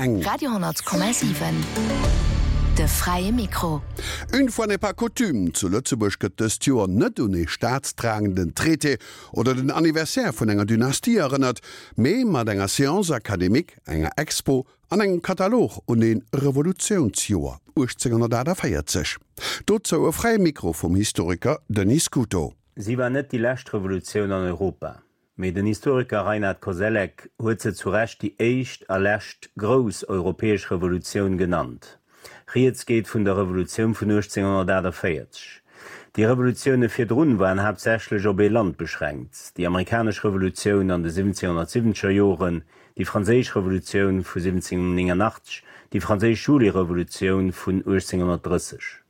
eng. Radio 10,7, De fräie Mikro. Une fois n'est pas coutume, zu Lëtzebuerg gëtt dëst Joer net un ee staatstragenden Traité oder den Anniversaire vun enger Dynastie erënnert, mee mat enger Séance académique, enger Expo an engem Katalog un ee Revolutiounsjoer 1848. Dozou e fräie Mikro vum Historiker Denis Scuto. Si war net déi lescht Revolutioun an Europa. Mee den Historiker Reinhard Koselleck huet se zu Recht déi éischt a lescht grouss europäesch Revolutioun genannt. Rieds geet vun der Revolutioun vun 1848. Déi Revolutioune virdrun waren haaptsächlech op ee Land beschränkt, déi amerikanesch Revolutioun an de 1770er Joren, déi franséisch Revolutioun vu 1789, déi franséisch Julirevolutioun vun 1830.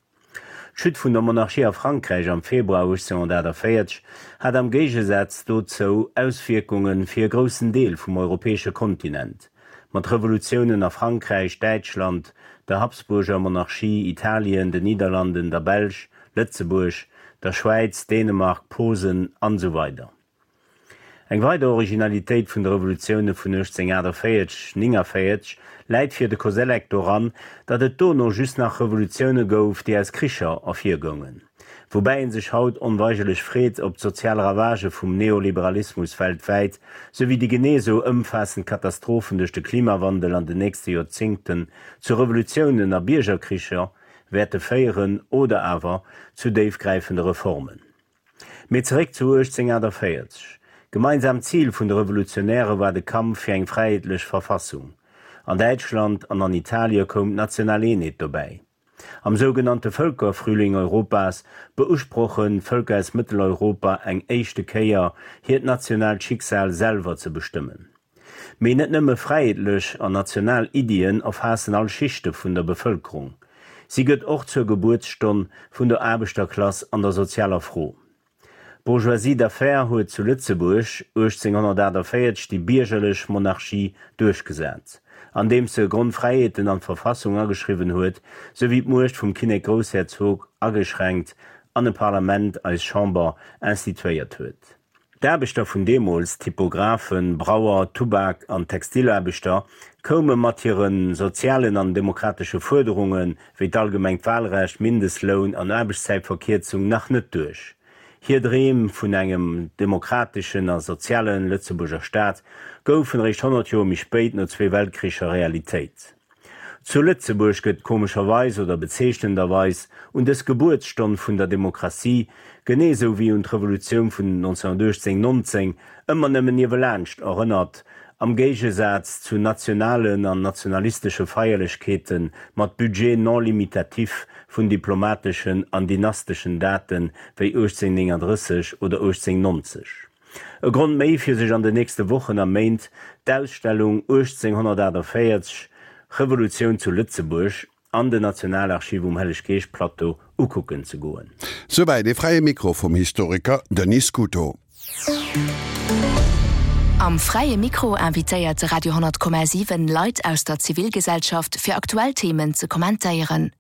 D'Chute vun der Monarchie a Frankräich am Februar 1848 hat am Géigesaz dozou Auswierkunge fir e groussen Deel vum europäesche Kontinent, mat Revolutiounen a Frankräich, Däitschland, der Habsburger Monarchie, Italien, den Nidderlanden, der Belsch, Lëtzebuerg, der Schwäiz, Dänemark, Posen an esou weider. Eng weider Originalitéit vun de Revolutioune vun 1848, 49 läit fir de Koselleck doran, datt et dono just nach Revolutioune gouf, déi aus Kricher ervirgoungen. Woubäi ee sech haut onweigerlech freet, ob d'sozial Ravagë vum Neoliberalismus weltwäit, souwéi déi genee esou ëmfaassend Katastrophen duerch de Klimawandel an den nächste Joerzéngten zu Revolutiounen a Biergerkricher wäerte féieren oder awer zu déifgräifende Reformen. Mee zeréck zu 1848. Gemeinsaamt Zil vun de Revolutionäre war de Kampf fir eng fräiheetlech Verfassung. An Däitschland an an Italie koum d'national Eenheet dobäi. Am sougenannte Völkerfrühling Europas beusprochen d'Vëlker aus Mëtteleuropa eng éischte Kéier hiert nationaalt Schicksal selwer ze bestëmmen. Mee net nëmme fräiheetlech an national Iddien erfaassen all Schichte vun der Bevëlkerung. Si gëtt och zur Gebuertsstonn vun der Aarbechterklass an der sozialer Fro. D'Bourgeoisie d'affaires huet zu Lëtzebuerg 1848 déi biergerlech Monarchie duerchgesat, andeems se Grondfräiheeten an d'Verfassung ageschriwwen huet, souwéi d'Muecht vum Kinnek-Groussherzog ageschränkt an e Parlament, eis Chamber, instituéiert huet. D'Aarbechter vun deemools, Typographen, Brauer, Tubak an Textilaarbechter, koume mat hire sozialen an demokratesche Fuerderunge wéi d'allgemengt Wahlrecht, Mindestloun an Aarbechtszäitverkierzung nach net duerch. Hir Dreem vun engem demokrateschen a soziale Lëtzebuerger Staat goufen eréischt 100 Joer méi spéit no zwee Weltkricher Realitéit. Zu Lëtzebuerg gëtt komescherweis oder bezeechnenderweis un dës Gebuertsstonn vun der Demokratie, genee esou wéi un d'Revolutioun vun 1918, 19, ëmmer nëmmen niewelaanscht erënnert, am Géigesaz zu nationalen an nationalistesche Feierlechkeete mat Budget non limitatif vun diplomateschen an dynasteschen Date wéi 1839 oder 1890. E Grond méi fir sech an den nächste Wochen a Méint d'Ausstellung 1848, Revolutioun zu Lëtzebuerg an den Nationalarchiv um Helleg-Geescht-Plateau ukucken ze goen. Souwäit ee fräie Mikro vum Historiker Denis Scuto. Am Fräie Mikro invitéiert de Radio 10,7 Leit aus der Zivilgesellschaft fir aktuell Themen ze kommentéieren.